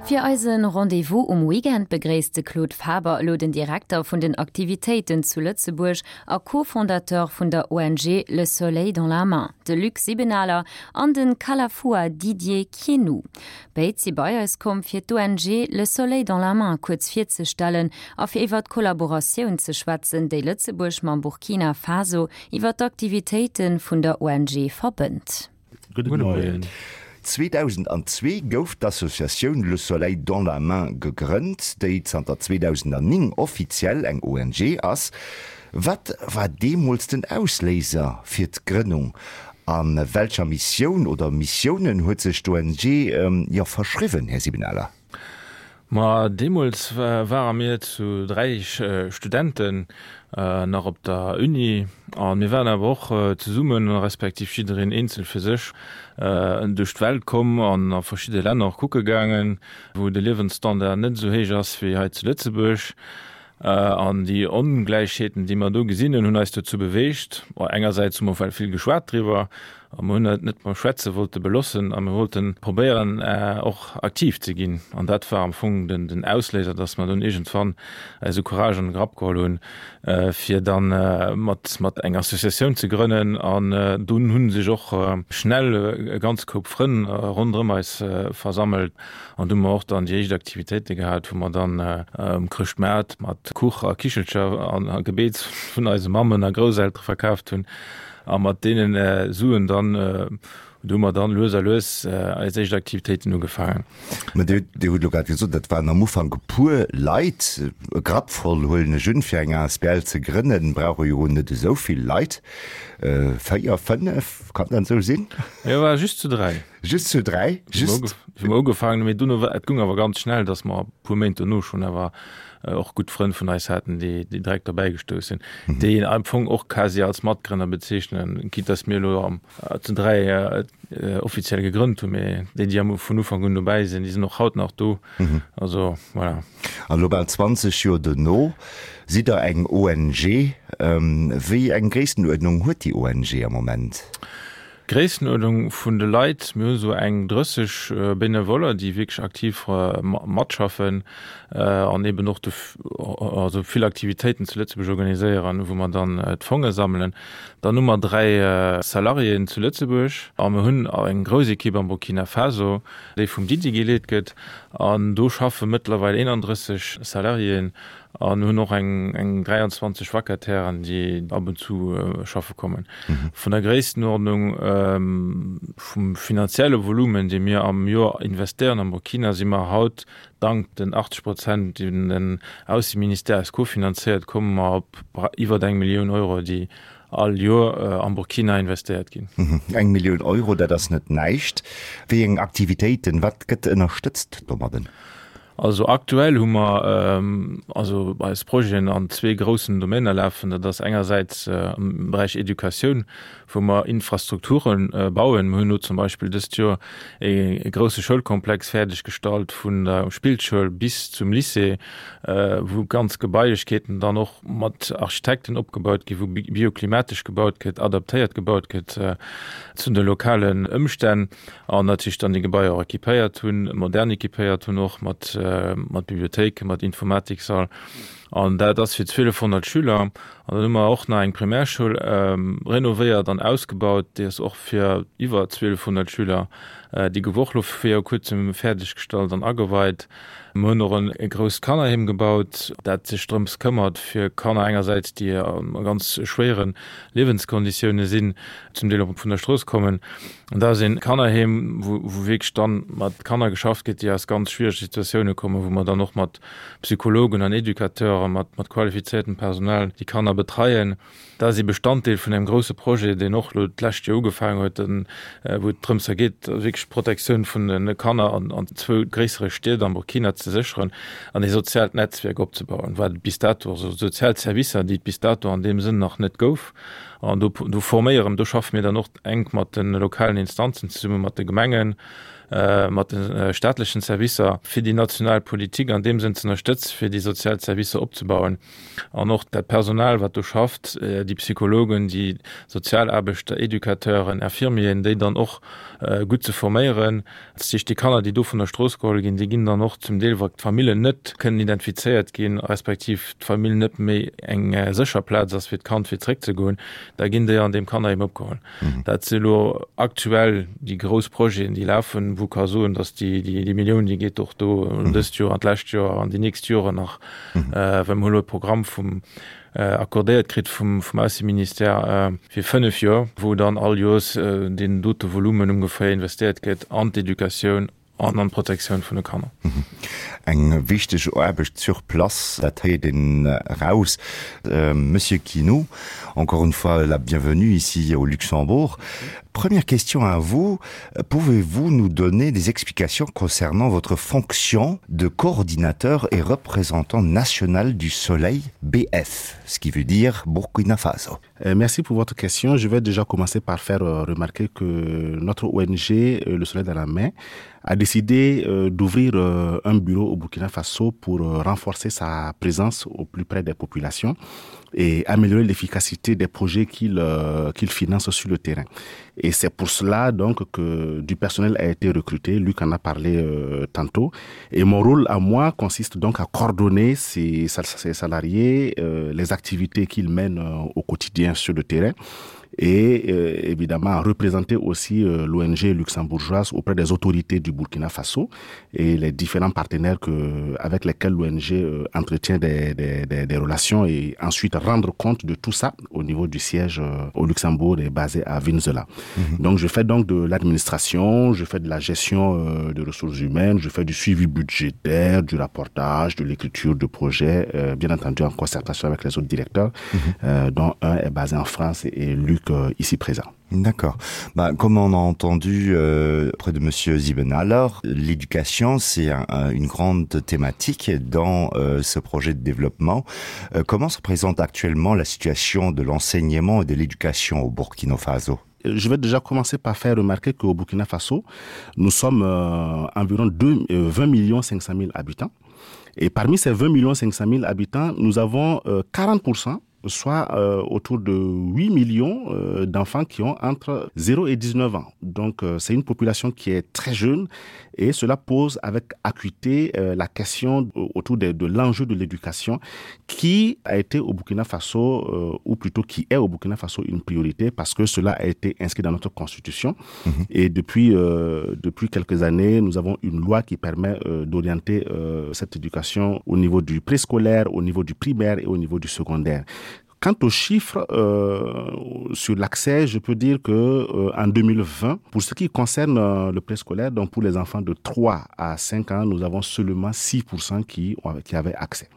Fir eise Rendez-vous um Weekend begréisst de Claude Faber elo den Direkter vun den Aktivitéiten zu Lëtzebuerg a Co-Fondateur vun der ONG Le Soleil dans la Main, de Luc Sibenaler an de Kalafua Didier Kienou. Béid si bei eis komm, fir d'ONG Le Soleil dans la Main kuerz virzestellen a fir iwwer d'Kollaboratioun ze schwätzen, déi Lëtzebuerg mam Burkina Faso iwwer d'Aktivitéite vun der ONG verbënnt. Gudde Moien. 2002 gouf d'Associatioun Le Soleil dans la Main gegrënnt, déi zanter 2009 offiziell eng ONG ass. Wat war deemools den Ausléiser fir d'Grënnung? A welcher Missioun oder Missiounen huet sech d'ONG, jo, verschriwwen, Här Sibenaler? Ma deemools ware mir zu 3 Studenten nach op der Uni a mir waren awer och zesummen, respektiv jiddereen eenzel fir sech, duerch d'Welt komm an a verschidde Länner och kucke gaangen, wou de Liewensstandard net esou héich ass wéi hei zu Lëtzebuerg. An déi Ongläichheeten, déi mer do gesinn hunn, hunn eis dozou beweegt, engersäits hu mer well vill geschwat driwwer, a mer hunn et net beim Schwätze wollte belossen a mir wollte probéieren, och aktiv ze ginn. An dat war am Fong den Ausléiser, dass mer dunn iergendwann eise Courage an de Grapp geholl hunn, fir da mat eng Associatioun ze grënnen. An dunn hu sech och schnell e ganz Koup Frënn ronderëm eis versammelt. An du hu mer och dann déi éischt Aktivitéite gehat, wou mer dann um Chrëschtmaart mat Kuch a Kichelcher an Gebeets vun eise Mammen a Grousseltere verkaaft hunn. A mat deenen Suen dann, do hu mer dann lues a lues eis éischt Aktivitéiten ugefaangen. Mä Dir, Dir hutt elo grad gesot, dat waren am Ufank e puer Leit, e Grapp voll, huelen ech un. Fir eng asbl ze grënnen, brauch e jo net esou vill Leit. 4, 5, kann dat esou sinn? Mir ware just zu 3. Just zu 3? Just? Wou mer ugefaangen hunn, mee dunno war, et goung awer ganz schnell, datt mer e puer Méint dono schonn awer och gutt Frënn vun eis haten, déi déi direkt dobäi gestouss sinn, déi een am Fong och quasi als Matgrënner bezeechnen, quitte datt mir elo am zu 3 offiziell gegrënnt hunn, mee déi, déi am vun Ufank un dobäi sinn, déi sinn och haut nach do. Also voilà. An elo bal 20 Joer dono sidd Der eng ONG. Wéi eng Gréisstenuerdnung huet déi ONG am Moment? Gréisstenuerdnung vun de Leit, mir hu sou eng 30 Benevoller, déi wierklech aktiv matschaffen an eben och also vill Aktivitéiten zu Lëtzebuerg organiséieren, wou mer dann d'Fonge sammelen. Dann hu mer 3 Salariéen zu Lëtzebuerg a mir hunn eng grouss Ekipp am Burkina Faso, déi vum Didier geleet gëtt an do schaffe mëttlerweil 31 Salariéen An hunn och eng 23 Vacatairen, déi ab und zu schaffe kommen. Vun der Gréisstenuerdnung vum finanzielle Volumen, dee mir am Joer investéieren am Burkina, si mer haut, dank den 80 Prozent, déi den Ausseministère eis kofinanzéiert, komme mer op iwwert eng Millioun Euro, déi all Joer am Burkina investéiert ginn. Eng Millioun Euro, dat ass net näischt. Wéi eng Aktivitéiten, wat gëtt ënnerstëtzt domadden? Also aktuell hu mer also eis Projeten an zwee groussen Domainer lafen. Dat ass engersäits am Beräich Educatioun, wou mer Infrastrukture bauen. Mir hunn elo zum Beispill dëst Joer e grousse Schoulkomplex fäerdeg gestallt vun der Spillschoul bis zum Lycée, wou ganz Gebailechkeeten dann och mat Architekten opgebaut ginn, wou bioklimatesch gebaut gëtt, adaptéiert gebaut gëtt zu de lokalen Ëmstänn. An natierlech dann déi Gebaier och équipéiert hunn, modern équipéiert hunn och mat, mat Bibliothéiken, mat Informatiksall. An dat ass fir 1.200 Schüler. An dann hu mer och nach eng Primärschoul renovéiert an ausgebaut, déi ass och fir iwwer 1.200 Schüler. Déi gouf och elo viru kuerzem fäerdeggestallt an ageweit. Mer hunn och e grousst Kannerheem gebaut, dat sech drëms këmmert, fir Kanner engersäits, déi a ganz schwéiere Liewenskonditioune sinn, zum Deel och vun der Strooss kommen, An dat ass een Kannerheem, wou wierklech dann mat Kanner geschafft gëtt, déi aus ganz schwierege Situatioune kommen, wou mer dann och mat Psychologen an Educateuren, mat mat qualifiziertem Personal déi Kanner betreien. Dat ass ee Bestanddeel vun engem grousse Projet, deen och elo d'lescht Joer ugefaangen huet, wou et drëms geet, wierklech d'Protektioun vun de Kanner an an zwou gréissere Stied am Burkina ze sécheren an ee soziaalt Netzwierk opzebauen, wat et bis dato, also sozial Servicer, déi et bis dato an deem Sënn nach net gouf. An do, do forméieren, do schaffe mir dann och enk mat de lokalen Instanzen zesummen, mat de Gemengen. mat de staatlechen Servicer, fir déi national Politik an deem Sënn ze ënnerstëtzen, fir déi sozial Servicer opzebauen an och dat Personal, wat do schafft, déi Psychologen, déi Sozialaarbechter, Educateuren, Infirmieren, déi dann och gutt ze forméieren. Dat heescht, déi Kanner, déi do vun der Strooss geholl ginn, déi ginn dann och zum Deel, wa d'Famillen net kënnen identifizéiert ginn, respektiv d'Famill net méi eng sécher Plaz ass fir d'Kand fir zréckzegoen, da ginn déi an deem Kannerheem opgeholl. Dat si elo aktuell déi grouss Projeten, déi lafen, wou ka soen, datt déi, déi Millioun, déi geet och do dëst Joer an d'lescht Joer an déi nächst Joren nach, well mer hu elo e Programm vum accordéiert kritt vum Ausseministère fir 5 Joer, wou dann all Joers deen dote Volumen ongeféier investéiert gëtt an d'Educatioun an an d'Protektioun vun de Kanner. Eng wichteg Aarbecht sur place, dat héiert een eraus. Monsieur Quinot, encore une fois la bienvenue ici au Luxembourg. Première question à vous, pouvez-vous nous donner des explications concernant votre fonction de coordinateur et représentant national du Soleil BF, ce qui veut dire Burkina Faso? Euh, merci pour votre question. Je vais déjà commencer par faire euh, remarquer que notre ONG, euh, Le Soleil dans la main, a décidé d'ouvrir un bureau au Burkina Faso pour renforcer sa présence au plus près des populations et améliorer l'efficacité des projets qu'il euh, qu'il finance sur le terrain. Et c'est pour cela donc que du personnel a été recruté, Luc en a parlé euh, tantôt. Et mon rôle à moi consiste donc à coordonner ces, ces salariés, euh, les activités qu'ils mènent euh, au quotidien sur le terrain et euh, évidemment représenter aussi euh, l'ONG luxembourgeoise auprès des autorités du Burkina Faso et les différents partenaires que, avec lesquels l'ONG euh, entretient des, des, des, des relations et ensuite rendre compte de tout ça au niveau du siège euh, au Luxembourg et basé à Venezuela. Mmh. Donc je fais donc de l'administration, je fais de la gestion euh, de ressources humaines, je fais du suivi budgétaire, du rapportage, de l'écriture de projets, euh, bien entendu en concertation avec les autres directeurs, mmh. euh, dont un est basé en France et Luc euh, ici présent. D'accord. Bah, comme on a entendu euh, près de monsieur Zibenaller, l'éducation c'est un, un, une grande thématique dans euh, ce projet de développement. Euh, comment se présente actuellement la situation de l'enseignement et de l'éducation au Burkina Faso? Je vais déjà commencer par faire remarquer qu'au Burkina Faso, nous sommes euh, environ 2, euh, 20 millions 500 000 habitants. Et parmi ces 20 millions 500 000 habitants, nous avons euh, 40 soit euh, autour de 8 millions euh, d'enfants qui ont entre 0 et 19 ans. Donc euh, c'est une population qui est très jeune et cela pose avec acuité euh, la question autour de, de l'enjeu de l'éducation qui a été au Burkina Faso euh, ou plutôt qui est au Burkina Faso une priorité parce que cela a été inscrit dans notre constitution mmh. et depuis, euh, depuis quelques années nous avons une loi qui permet euh, d'orienter euh, cette éducation au niveau du préscolaire, au niveau du primaire et au niveau du secondaire. Quant aux chiffres euh, sur l'accès, je peux dire que euh, en 2020, pour ce qui concerne euh, le préscolaire, donc pour les enfants de 3 à 5 ans, nous avons seulement 6% qui, qui avaient accès.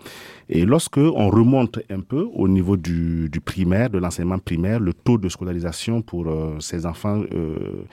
Et lorsque on remonte un peu au niveau du, du primaire, de l'enseignement primaire, le taux de scolarisation pour euh, ces enfants euh,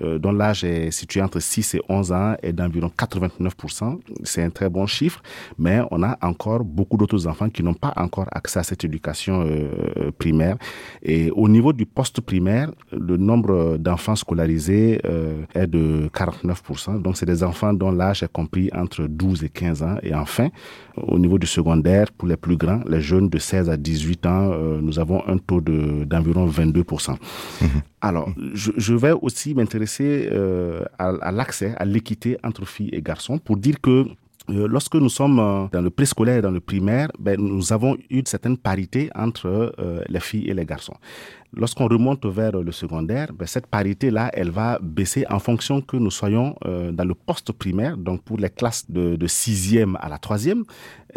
euh, dont l'âge est situé entre 6 et 11 ans est d'environ 89%. C'est un très bon chiffre, mais on a encore beaucoup d'autres enfants qui n'ont pas encore accès à cette éducation euh, primaire. Et au niveau du poste primaire, le nombre d'enfants scolarisés euh, est de 49%. Donc c'est des enfants dont l'âge est compris entre 12 et 15 ans. Et enfin, au niveau du secondaire, pour les plus grands, les jeunes de 16 à 18 ans, euh, nous avons un taux d'environ 22%. Mmh. Alors, je, je vais aussi m'intéresser euh, à, à l'accès, à l'équité entre filles et garçons pour dire que euh, lorsque nous sommes euh, dans le préscolaire et dans le primaire, ben, nous avons une certaine parité entre euh, les filles et les garçons. Lorsqu'on remonte vers le secondaire, ben, cette parité-là, elle va baisser en fonction que nous soyons euh, dans le poste primaire, donc pour les classes de, de sixième à la troisième,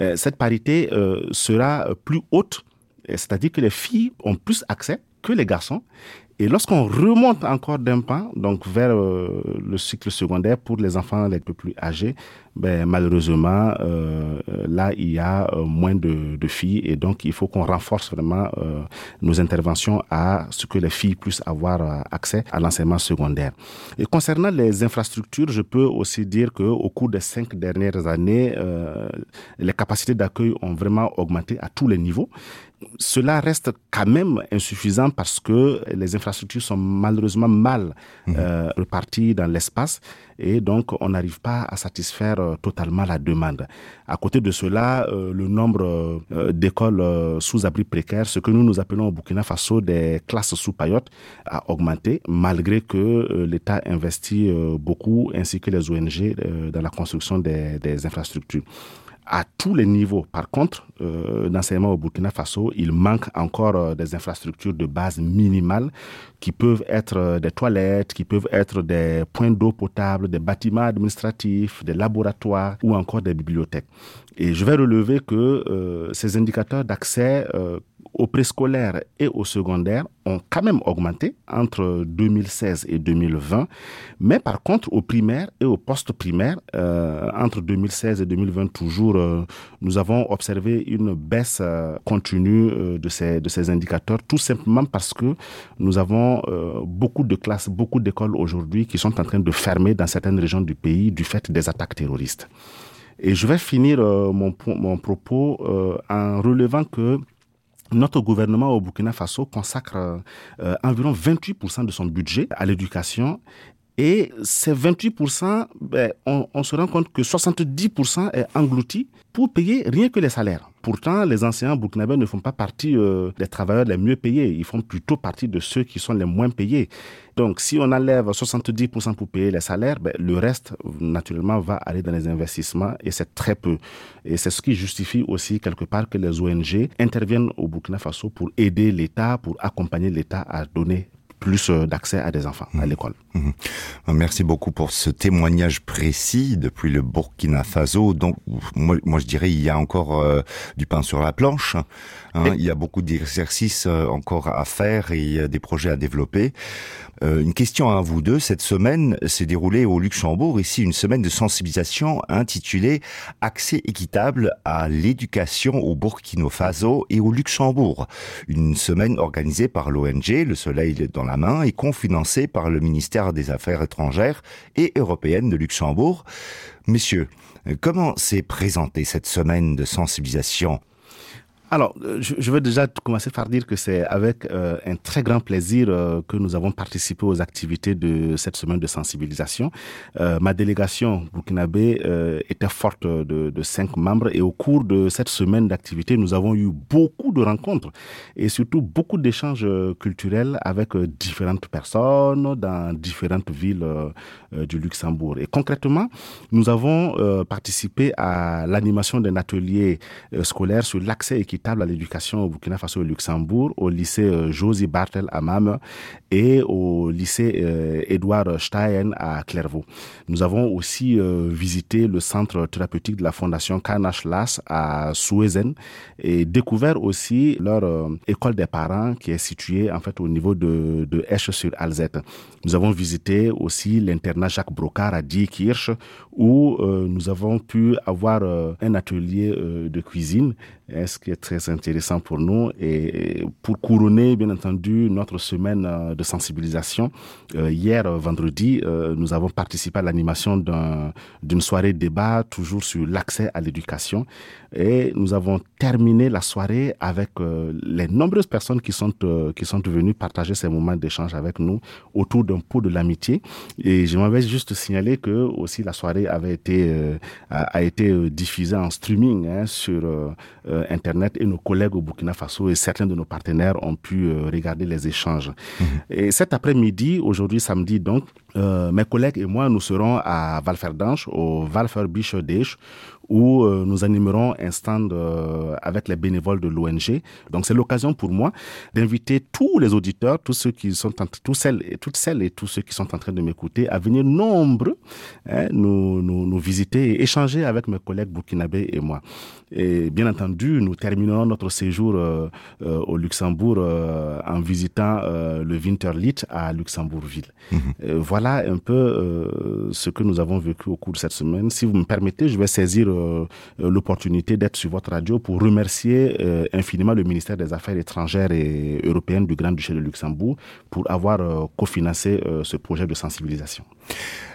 euh, cette parité euh, sera plus haute, c'est-à-dire que les filles ont plus accès que les garçons Et lorsqu'on remonte encore d'un pas, donc vers euh, le cycle secondaire pour les enfants les peu plus âgés, ben, malheureusement, euh, là, il y a euh, moins de, de filles et donc il faut qu'on renforce vraiment euh, nos interventions à ce que les filles puissent avoir euh, accès à l'enseignement secondaire. Et concernant les infrastructures, je peux aussi dire qu'au cours des cinq dernières années, euh, les capacités d'accueil ont vraiment augmenté à tous les niveaux. Cela reste quand même insuffisant parce que les infrastructures sont malheureusement mal mmh. euh, reparties dans l'espace et donc on n'arrive pas à satisfaire euh, totalement la demande. À côté de cela, euh, le nombre euh, d'écoles euh, sous abri précaire, ce que nous nous appelons au Burkina Faso des classes sous paillotte, a augmenté malgré que euh, l'État investit euh, beaucoup ainsi que les ONG euh, dans la construction des, des infrastructures à tous les niveaux. Par contre, euh, d'enseignement au Burkina Faso, il manque encore euh, des infrastructures de base minimales qui peuvent être euh, des toilettes, qui peuvent être des points d'eau potable, des bâtiments administratifs, des laboratoires ou encore des bibliothèques. Et je vais relever que euh, ces indicateurs d'accès euh, au préscolaire et au secondaire ont quand même augmenté entre 2016 et 2020, mais par contre au primaire et au post-primaire, euh, entre 2016 et 2020 toujours, euh, nous avons observé une baisse euh, continue euh, de, ces, de ces indicateurs, tout simplement parce que nous avons euh, beaucoup de classes, beaucoup d'écoles aujourd'hui qui sont en train de fermer dans certaines régions du pays du fait des attaques terroristes. Et je vais finir euh, mon, mon propos euh, en relevant que Notre gouvernement au Burkina Faso consacre euh, environ 28% de son budget à l'éducation et ces 28%, ben, on, on se rend compte que 70% est englouti pour payer rien que les salaires. Pourtant, les enseignants burkinabés ne font pas partie euh, des travailleurs les mieux payés, ils font plutôt partie de ceux qui sont les moins payés. Donc si on enlève 70% pour payer les salaires, ben, le reste naturellement va aller dans les investissements et c'est très peu. Et c'est ce qui justifie aussi quelque part que les ONG interviennent au Burkina Faso pour aider l'État, pour accompagner l'État à donner plus euh, d'accès à des enfants mmh. à l'école. Mmh. Merci beaucoup pour ce témoignage précis depuis le Burkina Faso. Donc moi, moi je dirais il y a encore euh, du pain sur la planche. Hein, et... Il y a beaucoup d'exercices euh, encore à faire et des projets à développer. Euh, une question à vous deux. Cette semaine s'est déroulée au Luxembourg ici une semaine de sensibilisation intitulée Accès équitable à l'éducation au Burkina Faso et au Luxembourg. Une semaine organisée par l'ONG Le Soleil dans la main et confinancée par le ministère des Affaires étrangères et européennes de Luxembourg. Messieurs, comment s'est présentée cette semaine de sensibilisation Alors, euh, je, je veux déjà commencer par dire que c'est avec euh, un très grand plaisir euh, que nous avons participé aux activités de cette semaine de sensibilisation. Euh, ma délégation burkinabé euh, était forte de, de cinq membres et au cours de cette semaine d'activité, nous avons eu beaucoup de rencontres et surtout beaucoup d'échanges euh, culturels avec euh, différentes personnes dans différentes villes euh, du Luxembourg. Et concrètement, nous avons euh, participé à l'animation d'un atelier euh, scolaire sur l'accès équitable à l'éducation au Burkina Faso et au Luxembourg, au lycée euh, Josie Bartel à Mame et au lycée euh, Edouard Stein à Clairvaux. Nous avons aussi euh, visité le centre thérapeutique de la fondation Kanash Las à Suezen et découvert aussi leur euh, école des parents qui est située en fait au niveau de, de Esch sur Alzette. Nous avons visité aussi l'internat Jacques Brocard à Diekirch où euh, nous avons pu avoir euh, un atelier euh, de cuisine, hein, ce qui est très intéressant pour nous et pour couronner bien entendu notre semaine euh, de sensibilisation. Euh, hier euh, vendredi, euh, nous avons participé à l'animation d'une un, soirée débat toujours sur l'accès à l'éducation et nous avons terminé la soirée avec euh, les nombreuses personnes qui sont, euh, qui sont venues partager ces moments d'échange avec nous autour d'un pot de l'amitié et je m'avais juste signalé que aussi la soirée avait été euh, a, a été euh, diffusée en streaming hein, sur euh, euh, internet et nos collègues au Burkina Faso et certains de nos partenaires ont pu euh, regarder les échanges. Mmh. Et cet après-midi, aujourd'hui samedi donc, euh, mes collègues et moi nous serons à Valferdanche au Valferbiche où euh, nous animerons un stand euh, avec les bénévoles de l'ONG. Donc c'est l'occasion pour moi d'inviter tous les auditeurs, tous ceux qui sont en, tous celles et toutes celles et tous ceux qui sont en train de m'écouter à venir nombreux hein, nous, nous, nous visiter et échanger avec mes collègues burkinabés et moi. Et bien entendu, nous terminerons notre séjour euh, euh, au Luxembourg euh, en visitant euh, le Winterlit à Luxembourgville. Mmh. Euh, voilà un peu euh, ce que nous avons vécu au cours de cette semaine. Si vous me permettez, je vais saisir euh, euh, l'opportunité d'être sur votre radio pour remercier euh, infiniment le ministère des Affaires étrangères et européennes du Grand-Duché de Luxembourg pour avoir euh, cofinancé euh, ce projet de sensibilisation.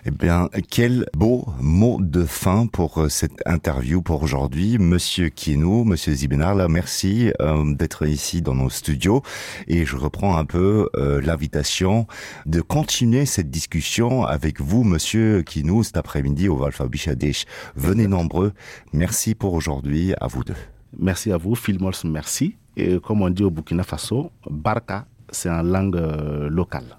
Eh bien, quel beau mot de fin pour euh, cette interview pour aujourd'hui. Monsieur Kino, Monsieur Zibenarla, merci euh, d'être ici dans nos studios et je reprends un peu euh, l'invitation de continuer cette discussion avec vous, Monsieur Kino, cet après-midi au Valfa Bichadech. Venez nombreux. Merci pour aujourd'hui à vous deux. Merci à vous, Phil Mols, merci. Et comme on dit au Burkina Faso, Barca, c'est en langue euh, locale.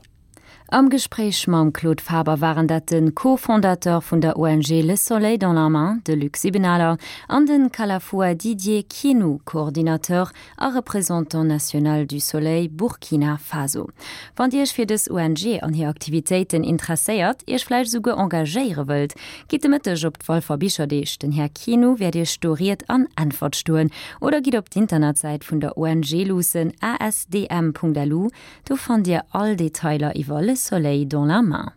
Am Gespréich mam Claude Faber waren dat de Co-Fondateur vun der ONG Le Soleil dans la main, de Luc Sibenaler, an de Kalafoua Didier Kienou, Coordinateur a Représentant national du Soleil Burkina Faso. Wann Dir Iech fir dës ONG an hir Aktivitéiten interesséiert, Iech vläicht esouguer engagéiere wëllt, gitt de Mëtteg op d'Walfer Bicherdeeg. Den Här Kienou wäert Iech do Ried an Äntwert stoen. Oder gitt op d'Internetsäit vun der ONG luussen, asdm.lu, Do fannt Dir all Detailer iwwer Le Soleil dans la main.